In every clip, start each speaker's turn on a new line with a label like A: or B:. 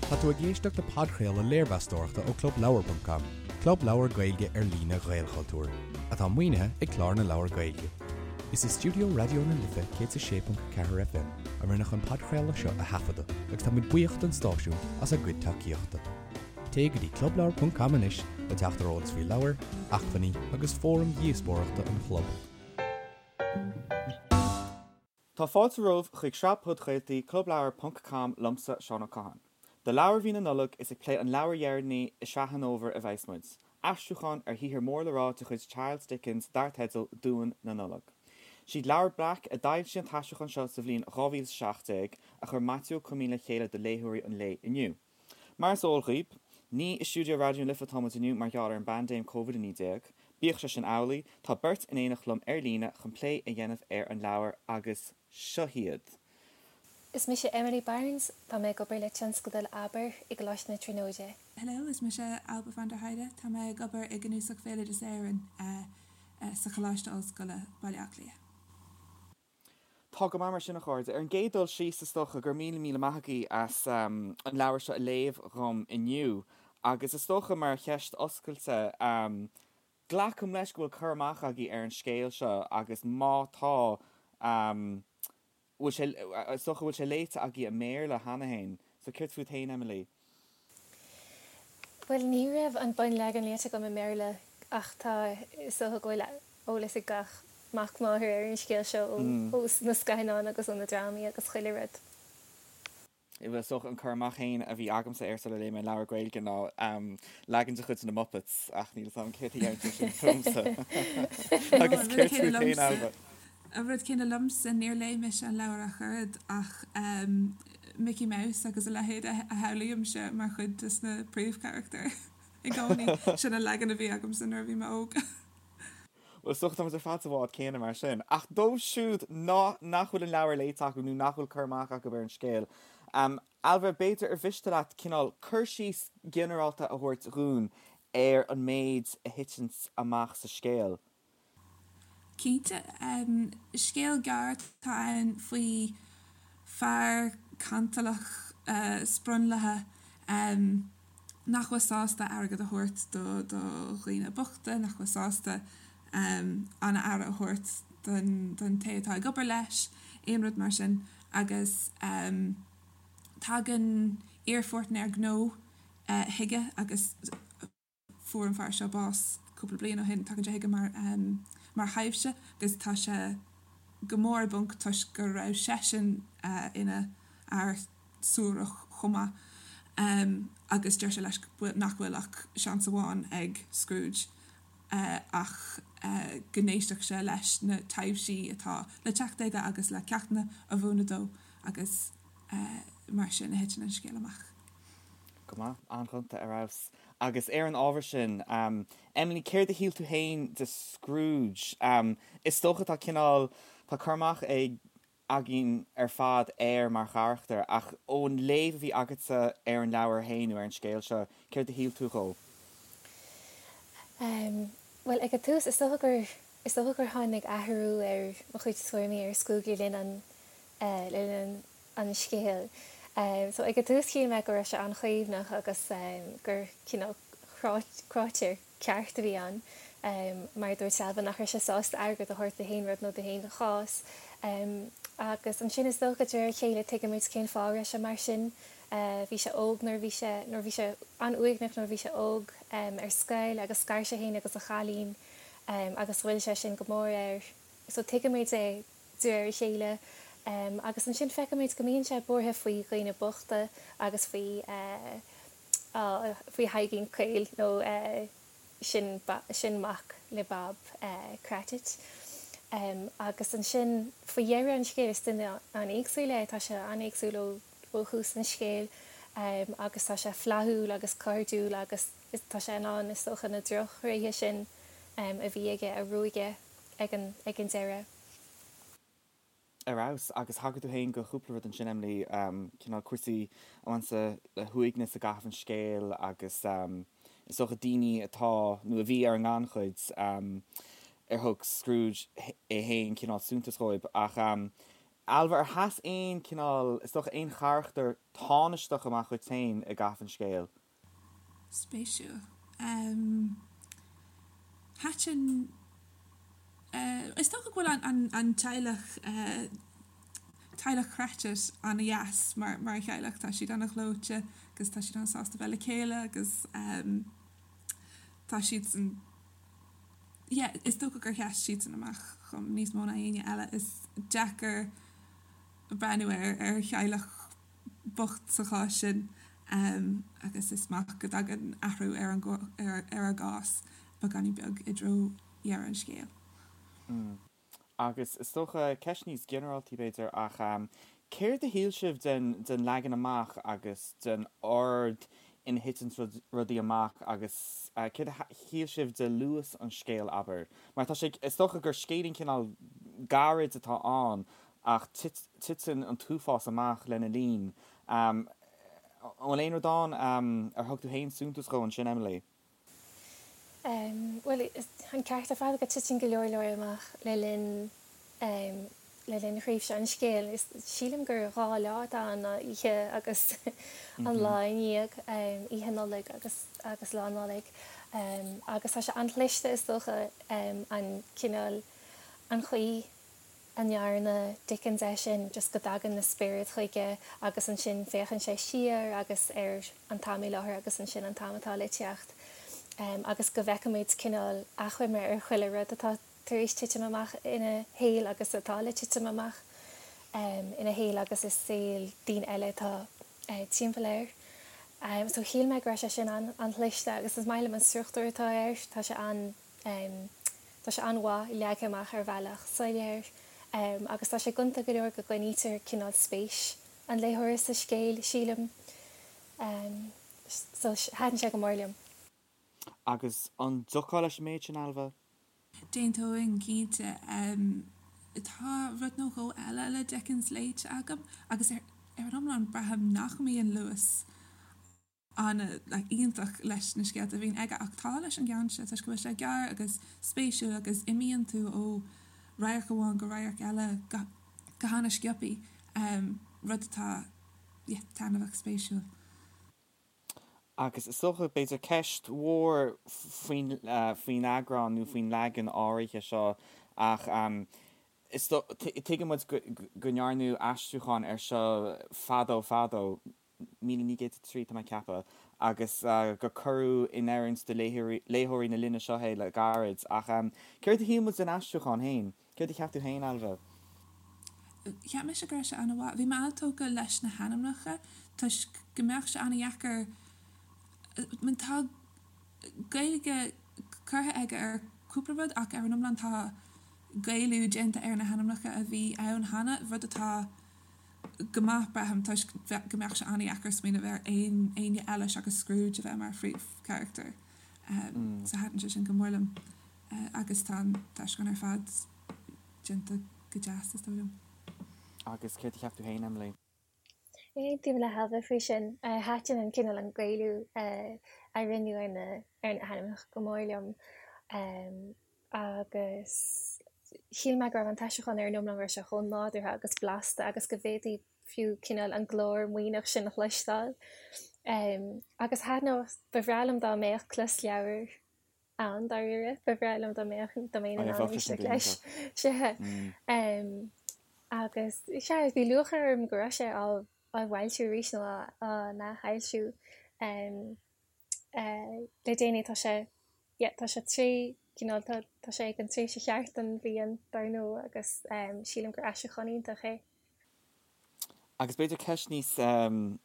A: Tá tú ag éisteacht le podchraoladh léirmheastóireachta ó Clubleabhar ponc com, club leabhar Gaeilge ar líne Ghaelchultúir, atá maoinithe ag Clár na Leabhar Gaeilge. Is i stiúideo Raidió na Life 106.4 FM a rinneadh an podchraoladh seo a thaifeadadh agus táimid buíoch don stáisiún as a gcuid tacaíochta. Téigh go dtí clubleabhar ponc com anois le teacht ar eolas faoi leabhair, acmhainní agus fóraim dhíospóireachta an chlub.
B: Tá fáilte romhaibh chuig sraith podchraoltaí Clubleabhar ponc com liomsa, Seán Ó Catháin. Do leabhar mhí na Nollag, is ag plé an leabhair dheireanaí i sraith an fhómhair a bheas muid, aistriúchán ar shaothar mór le rá de chuid Charles Dickens dar teideal Duan na Nollag. Siad Leabhar Breac a d'fhoilsigh an t-aistriúchán seo sa bhliain 2017, a chuir Maitiú Ó Coimín le chéile do léitheoirí an lae inniu. Mar is eol dhaoib, ní i stiúideo Raidió na Life atá muid inniu mar gheall ar an bpaindéim Covid-19. Bíodh sé sin amhlaidh, tá beirt in éineacht liom ar líne chun plé a dhéanamh ar an leabhar agus seo hiad.
C: Is mise Emily Barnes, tá mé ag obair le tionscadal Abair i gColáiste na Tríonóide.
D: Hello, is mise Ailbhe van der Heide, tá mé ag obair i gCnuasach Bhéaloideas Éireann sa Choláiste Ollscoile, Baile Átha Cliath.
B: Tá go maith mar sin, a chairde. Ar an gcéad dul síos, is dócha go raibh míle míle maith agaibh as an leabhar seo a léamh dhom inniu. Agus is dócha, mar cheist oscailte, glacaim leis go bhfuil cur amach agaibh ar an scéal seo agus má tá, bhfuil sé, is dócha go bhfuil sé léite agaibh i mBéarla cheana féin. So céard fút féin, Emily?
C: Bhuel, ní raibh an bunleagan léite agam i mBéarla ach tá, is dócha go bhfuil eolas ag gach mac máthar ar an scéal seo ó na scannáin agus ó na drámaí agus chuile rud.
B: Bhuel, is dócha an cur amach féin a bhí agamsa air sular léigh mé an leabhar Gaeilge ná leagan de chuid na Muppets ach níl 'fhios a'm céard a deireann sé sin fúmsa. Agus céard fút féin, Ailbhe?
D: An rud céanna liomsa, níor léigh mise an leabhar ach oiread ach Mickey Mouse agus a leithéid a shamhlaímse mar chuid de na príomhcharachtair i gcónaí. Sin an leagan a bhí agamsa nuair a bhí mé óg.
B: Bhuel, is dócha tá muid ar fad sa bhád céanna mar sin. Ach dóibh siúd nach bhfuil an leabhar léite acu nó nach bhfuil cur amach acu ar an scéal, Ailbhe, b'fhéidir ar mhiste leat cineál cur síos ginearálta a thabhairt dhúinn ar an méid a thiteann amach sa scéal?
D: Cinnte. Scéal gearr atá ann faoi fear cantalach sprionlaithe nach bhfuil sásta airgead a thabhairt do dhaoine bochta, nach bhfuil sásta an-aire a thabhairt don té atá ag obair leis, aon rud mar sin. Agus tagann iarpháirtnéir gnó chuige agus. Fuair an fear seo bás cúpla bliain ó shin. Tagann sé chuige mar mar thaibhse agus tá sé go mór i bponc toisc go raibh seisean ina fhear suarach chomh maith agus deir sé leis nach bhfuil ach seans amháin ag Scrooge ach go n-éistfeadh sé leis na taibhsí atá le teacht aige agus le ceachtanna a mhúineadh dó agus mar sin a thiteann an scéal amach.
B: Go maith, an-ghonta ar fheabhas. Agus ar an ábhar sin, Emily, céard a shíl tú féin de Scrooge? Is dócha tá cineál, tá cur amach ag, againn ar fad air mar charachtar, ach ón léamh a bhí agatsa ar an leabhar féin nó ar an scéal seo, céard a shíl tú dhó?
C: Bhuel, ag an tús, is dócha gur, is dócha gur tháinig athrú ar mo chuid tuairimí ar Scrooge le linn an, le linn an, an scéil. So ag an tús shíl mé go raibh sé an-chaomhnach agus gur cineál cráiteoir ceart a bhí ann. Mar a dúirt Ailbhe nach raibh sé sásta airgead a thabhairt do haon rud nó do haon chás. Agus ansin is dócha de réir a chéile tuigimid cén fáth a raibh sé mar sin. Bhí sé óg nuair a bhí sé, nuair bhí sé an-uaigneach nuair a bhí sé óg ar scoil agus scar sé féin agus a chailín agus ghoill sé sin go mór air. So tuigimid é. de réir a chéile, agus ansin feicimid go mbíonn sé buartha faoi dhaoine bochta agus faoi faoi Thaidhgín Caol nó sin sin mac le Bob Cratchit. Agus ansin faoi dheireadh an scéil is duine an-éagsúil é, tá sé an-éagsúil ó ó thús an scéil agus tá sé flaithiúil agus cairdiúil agus tá sé in ann is dócha na drochthréithe sin a bhí aige a ruaigeadh ag an ag an deireadh.
B: Ar fheabhas. Agus thagair tú féin do chúpla rud ansin, Emily, cineál cúrsaí a bhaineann le huaigneas i gcaitheamh an scéil agus is dócha daoine atá, nó a bhí ar an ngannchuid, ar thug Scrooge é féin cineál suntas dhóibh. Ach. Ailbhe, ar sheas aon cineál, is dócha, aon charachtar tánaisteach amach dhuit féin i gcaitheamh an scéil?
D: Spéisiúil. Thaitin, is dócha go bhfuil an teaghlach, teaghlach Cratchit an-dheas mar theaghlach. Tá siad an-ghleoite agus tá siad an-sásta bheith le chéile agus tá siadsan, yeah, is dócha gur sheas siadsan amach dhom níos mó ná éinne eile. Is deacair breathnú ar theaghlach bocht sa chás sin agus is maith go dtagann athrú ar an ar a gcás beagáinín beag i dtreo dheireadh an scéil.
B: Agus is dócha, ceist níos ginearáltaí b'fhéidir, ach céard a shíl sibh den den leagan amach agus den ord ina thiteann rudaí amach agus céard a shíl sibh de luas an scéil, abair? Mar tá sé, is dócha gur scéilín cineál gairid atá ann ach titeann an t-uafás amach lena linn. An bhfuil aon rud ann ar thug tú féin suntas dhó ansin, Emily?
C: Bhuel, an ceart ar fad go titeann go leor leor amach le linn le linn thréimhse an scéil. Sílim gur 2 lá atá ann, ná oíche agus an lá i ndiaidh, oíche Nollag agus agus lá Nollag. Agus tá sé an-chliste is dócha an cineál, an chaoi a ndearna Dickens é sin, just go dtagann na spioraid chuige agus ansin féachann sé siar agus ar an t-am i láthair agus ansin an t-am atá le teacht agus go bhfeicimid cineál achoimre ar chuile rud atá tar éis titim amach ina shaol agus atá le titim amach ina shaol agus i saol daoine eile atá timpeall air. So shíl mé go raibh sé sin an-chliste agus is maith liom an struchtúr atá air, tá sé an Tá sé an-mhaith leagtha amach ar bhealach soiléir agus tá sé gonta go leor go gcoinnítear cineál spéis an léitheora sa scéal, sílim. So, thaitin sé go mór liom.
B: Agus an dtiocfá leis an méid sin, Ailbhe?
D: D'aontóinn, cinnte. Tá rud nó dhó eile le Dickens léite agam agus ar an iomlán braithim nach mbíonn luas an-iontach leis na scéalta a bhíonn aige ach tá leis an gceann seo toisc go bhfuil sé gearr agus spéisiúil agus imíonn tú ó radharc amháin go radharc eile go go hana-sciobthaí, rud atá yeah taitneamhach spéisiúil.
B: Agus is dócha, b'fhéidir ceist mhór faoin faoin eagrán nó faoin leagan áirithe seo ach is tuigeann muid go go ndearnadh aistriúchán air seo fadó fadó, 1903, tá mé ag ceapadh, agus gur cuireadh in oiriúint do léitheoirí na linne seo é le gairid. Ach céard a shíl muid den aistriúchán féin? Céard a cheap tú féin, Ailbhe?
D: Cheap mise go raibh sé an-mhaith. Bhí mé an-tógtha leis na hainmneacha toisc go mbeadh sé an-dheacair, tá Gaeilge curtha aige ar cúpla rud ach ar an iomlán tá Gaelú déanta ar na hainmneacha a bhí ann cheana, rud atá go maith, braithim, toisc go mbeadh sé an-dheacair smaoineamh ar aon éinne eile seachas Scrooge a bheith mar phríomhcharachtar. So thaitin sé sin go mór liom. Agus tá an t-aistriúchán ar fad déanta go deas, is dóigh liom.
B: Agus céard a cheap tú féin, Emily?
C: Aontaím le hAilbhe faoi sin. Thaitin an cineál an Gaelú a rinneadh ar na ar na hainmneacha go mór liom. Agus shíl mé go raibh an t-aistriúchán ar an iomlán go raibh sé chomh nádúrtha agus blasta agus go bhféadfaí fiú cineál an glór maoithneach sin a chloisteáil. Agus thaitneodh, ba bhreá liom dá mbeadh closleabhar ann dáiríre, ba bhreá liom dá mbeadh, dá mbeinn in ann éisteacht leis. Sea. Agus sea, bhí lúcháir orm go raibh sé á bhfoilsiú arís nó á n-athfhoilsiú le déanaí. Tá sé yeah tá sé tré cineál tá tá sé ag an tréimhse cheart den bhliain dar ndóigh agus sílim gur aistriúchán iontach é.
B: Agus b'fhéidir ceist níos níl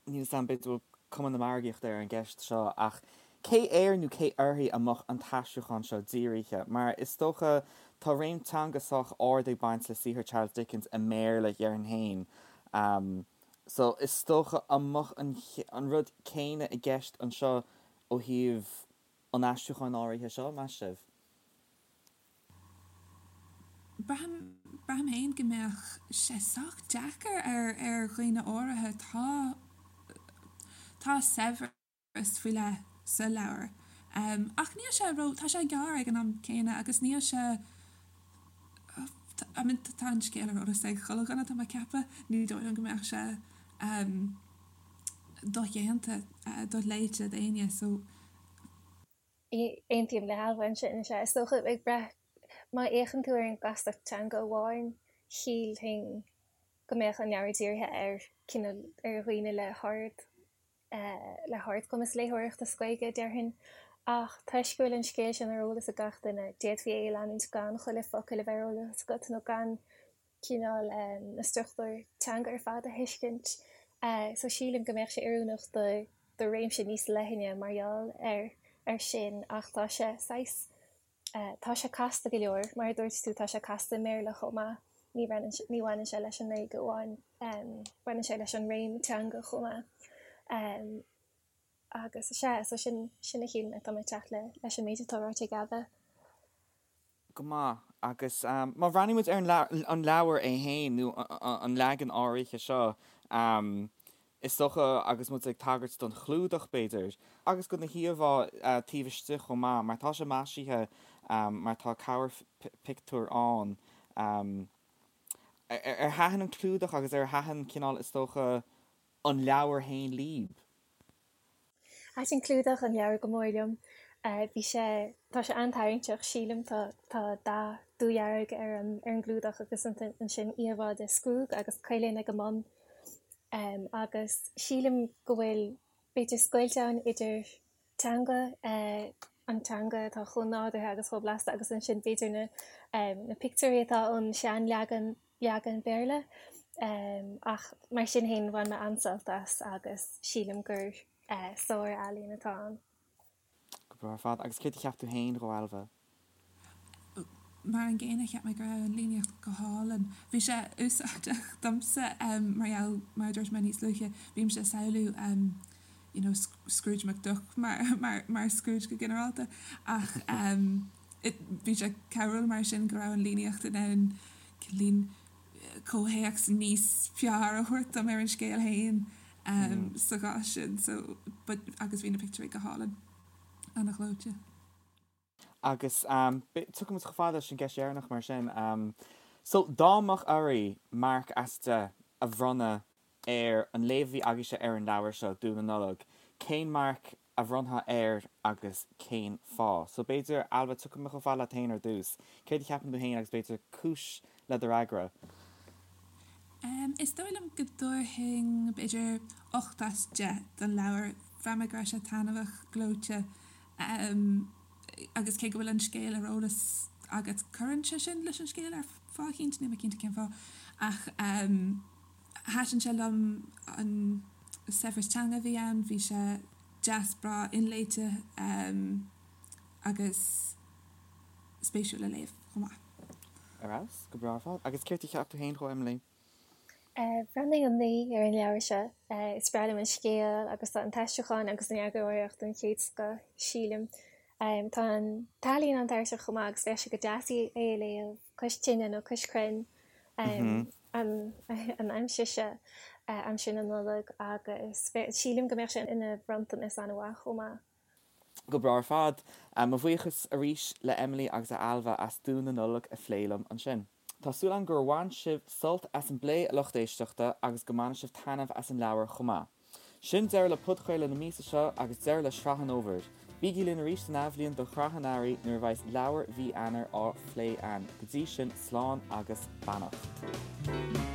B: 'fhios a'm b'fhéidir go bhfuil cuma na margaíochta ar an gceist seo ach cé air nó cé uirthi a mbeadh an t-aistriúchán seo dírithe? Mar is dócha tá réim teanga sách ard ag baint le saothar Charles Dickens i mBéarla déarfainn féin. So is dócha an mbeadh an an rud céanna i gceist anseo ó thaobh an aistriúcháin áirithe seo, meas sibh?
D: Braithim, braithim féin go mbeadh sé sách deacair ar, ar dhaoine áirithe. Tá, tá saibhreas faoi leith sa leabhar. Ach níl sé ró, tá sé gearr ag an am céanna agus níl sé. I mean tá an scéal ar eolas ag chuile dhuine tá mé ag ceapadh, ní dóigh liom go mbeadh sé dodhéanta, doléite d'éinne so.
C: Aontaím le hAilbhe ansin, is ea. Is dócha, ag brath, má fhéachann tú ar an gcastacht teanga amháin, shílfinn go mbeadh an leabhar dírithe ar cineál, ar dhaoine le hard, le hardchumas léitheoireachta sa Ghaeilge, déarfainn. Ach toisc go bhfuil an scéal sin ar eolas ag gach duine, d'fhéadfaí é a leanúint gan chuile focal a bheith ar eolas agat nó gan cineál na struchtúir teanga ar fad a thuiscint. So sílim go mbeadh sé oiriúnach do do réimse níos leithne mar gheall ar ar sin ach tá sé saghas tá sé casta go leor, mar a dúirt tú tá sé casta i mBéarla chomh maith, ní bhaineann ní bhaineann sé leis an nGaeilge amháin, baineann sé leis an réim teanga chomh maith. Agus is ea, so sin sin a shíl mé, tá mé ag teacht le leis an méid atá ráite ag Ailbhe.
B: Go maith. Agus má bhreathnaíonn muid ar an leabhar é féin, nó an leagan áirithe seo, is dócha, agus muid ag tagairt don chlúdach, b'fhéidir, agus do na híomhá taobh istigh chomh maith, mar tá sé maisithe, mar tá cabhairphictiúir ann. Ar thaitin an clúdach agus ar thaitin cineál, is dócha, an leabhar féin libh?
C: Thaitin clúdach an leabhair go mór liom. Bhí sé, tá sé an-tarraingteach, sílim. Tá, tá dath dúdhearg ar an, ar an gclúdach agus ansin íomhá de Scrúg agus coileáin ag an mbun. Agus sílim go bhfuil, b'fhéidir scoilt ann idir teanga, an teanga atá chomh nádúrtha agus chomh blasta agus ansin b'fhéidir na, na pictiúirí atá ón seanleagan leagan Béarla. Ach mar sin féin bhain mé an-sult as agus sílim gur sár-ealaín atá ann.
B: Go breá ar fad. Agus céard a cheap tú féin dhó, Ailbhe?
D: Mar an gcéanna, cheap mé go raibh an líníocht go hálainn. Bhí sé úsáideach domsa mar gheall, mar a dúirt mé níos luaithe, bímse ag samhlú you know Scrooge McDuck mar, mar, mar Scrooge go ginearálta ach bhí sé cabhrúil mar sin go raibh an líníocht in ann cineál comhthéacs níos fearr a thabhairt dom ar an scéal féin sa chás sin so but agus bhí na pictiúirí go hálainn, ana-ghleoite.
B: Agus tiocfaidh muid chomh fada leis an gceist dheireanach mar sin. So dá mbeadh oraibh marc as 10 a bhronnadh ar an léamh a bhí agaibhse ar an leabhar seo, Duan na Nollag, cén marc a bhronnfá air agus cén fáth? So b'fhéidir, Ailbhe, tiocfaidh mé chomh fada leat féin ar dtús. Céard a cheapann tú féin agus b'fhéidir cúis le do fhreagra?
D: Is dóigh liom go dtabharfainn b'fhéidir 8 as 10 don leabhar. Bhraith mé go raibh sé taitneamhach, gleoite agus cé go bhfuil an scéal ar eolas agat, cuireann sé sin leis an scéal ar fáth eicínt, níl mé cinnte cén fáth ach Thaitin sé liom an saibhreas teanga a bhí ann, bhí sé deas breá inléite agus spéisiúil le léamh chomh maith.
B: Ar fheabhas, go breá ar fad. Agus céard a cheap tú féin dhó, Emily?
C: Bhronnfainn 9 ar an leabhar seo. Is breá liom an scéal agus tá an t-aistriúchán agus an eagarthóireacht den chéad scoth, sílim. Tá an t-ealaín an-tarraingteach chomh maith agus bheadh sé go deas é a léamh cois tine nó cois crainn. an aimsir seo, aimsir na Nollag agus sílim go mbeadh sé ina bhronntanas an-mhaith chomh maith.
B: Go breá ar fad. Mo bhuíochas arís le Emily agus le Ailbhe as Duan na Nollag a phlé liom ansin. Tá súil agam gur bhain sibh sult as an bplé a lucht éisteachta agus go mbainfidh sibh taitneamh as an leabhar chomh maith. Sin deireadh le podchraoladh na míosa seo agus deireadh le sraith an fhómhair. Bígí linn arís san athbhliain do shraith an earraigh nuair a bheas leabhar mhí Eanáir á phlé againn. Go dtí sin, slán agus beannacht.